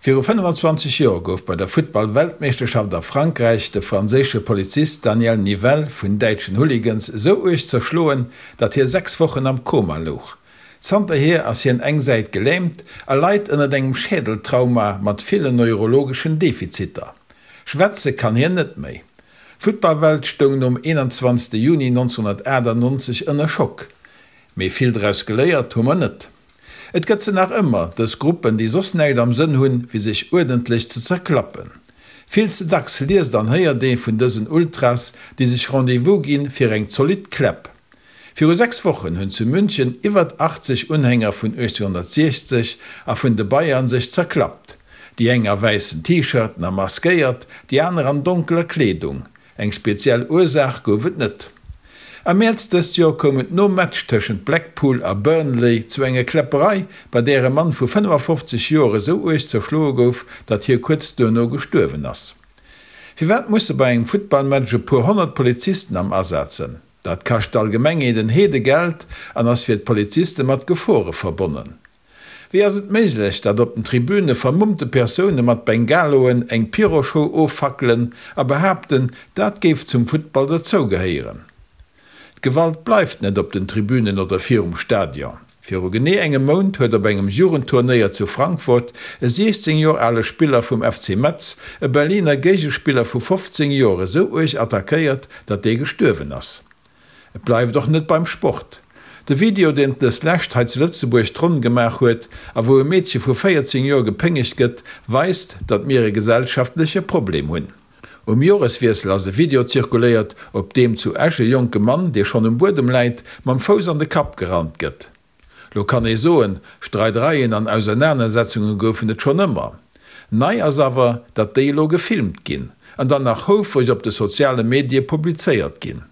Viru 25 Joer gouf bei der Futtball-Weltmeeschterschaft a Frankräich de franséische Polizist Daniel Nivelle vun däitschen Hooligans esou uerg zerschloen, datt hie 6 Wochen am Koma louch. Zanterhier ass hien eng Säit gelähmt a leit ënnert engem Schädeltrauma mat villen neurologeschen Defiziter. Schwätze kann hien net méi. D'Futtballwelt stoung nom 21 Juni 1998 ënner Schock. Mee vill draus geléiert hu mer net. Et gëtt se nach ëmmer, dës Gruppen, déi soss näischt am Sënn hunn, wéi sech uerdentlech ze zerklappen. Vill ze dacks liest an héiert ee vun dësen Ultras, déi sech Rendez-vous ginn fir eng zolidd Kläpp. Viru 6 Wochen hunn zu München iwwert 80 Unhänger vun 1860 a vun de Bayern sech zerklappt. Déi eng a wäissen T-Shirten a maskéiert, déi aner an donkeler Kleedung. Eng speziell Ursaach gouf et net. Am Mäerz dëst Joer koum et nom Match tëschent Blackpool a Burnley zu enger Kläpperei, bei där e Mann vu 55 Joer esou uerg zerschloe gouf, datt hie kuerz duerno gestuerwen ass. Firwat musse bei engem Futtballmatch e puer 100 Polizisten am Asaz sënn? Dat kascht d'Allgemengheet en Heedegeld an ass fir d'Poliziste mat Gefore verbonnen. Wéi ass et méiglech, datt op den Tribüne vermummte Persoune mat Bengaloen eng Pyroshow offackelen a behaapten, dat géif zum Futtball dozougehéieren? D'Gewalt bleift net op den Tribünen oder virum Stadion. Viru genee engem Mount huet op engem Jugendturnéier zu Frankfurt e 16 Joer ale Spiller vum FC Metz e Berliner Géigespiller vu 15 Joer esou uerg attackéiert, datt dee gestuerwen ass. Et bleift och net beim Sport. De Video, deen dës Lescht hei zu Lëtzebuerg d'Ronn gemaach huet a wou e Meedche vu 14 Joer gepéngegt gëtt, weist, datt mir e gesellschaftleche Problem hunn. Um Joreswiessel ass e Video zirkuléiert, op deem zu Esch e jonke Mann, dee schonn um Buedem läit, mam Fouss an de Kapp gerannt gëtt. Lo kann ee soen, Streidereien an Ausernanersetzunge goufen et schonn ëmmer. Nei ass awer, datt déi elo gefilmt ginn an dann nach houfreg op de soziale Medie publizéiert ginn.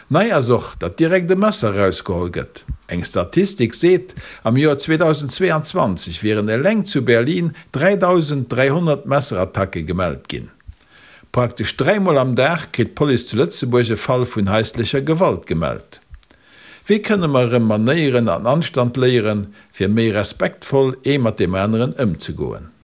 Nei ass och, datt direkt e Messer erausgeholl gëtt. Eng Statistik seet, am Joer 2022 wieren eleng zu Berlin 3.300 Messerattacke gemellt ginn. Praktesch dräimol am Dag kritt d'Police zu Lëtzebuerg e Fall vun haislecher Gewalt gemellt. Wéi kënne mer erëm Manéieren an Anstand léieren, fir méi respektvoll ee mat deem aneren ëmzegoen?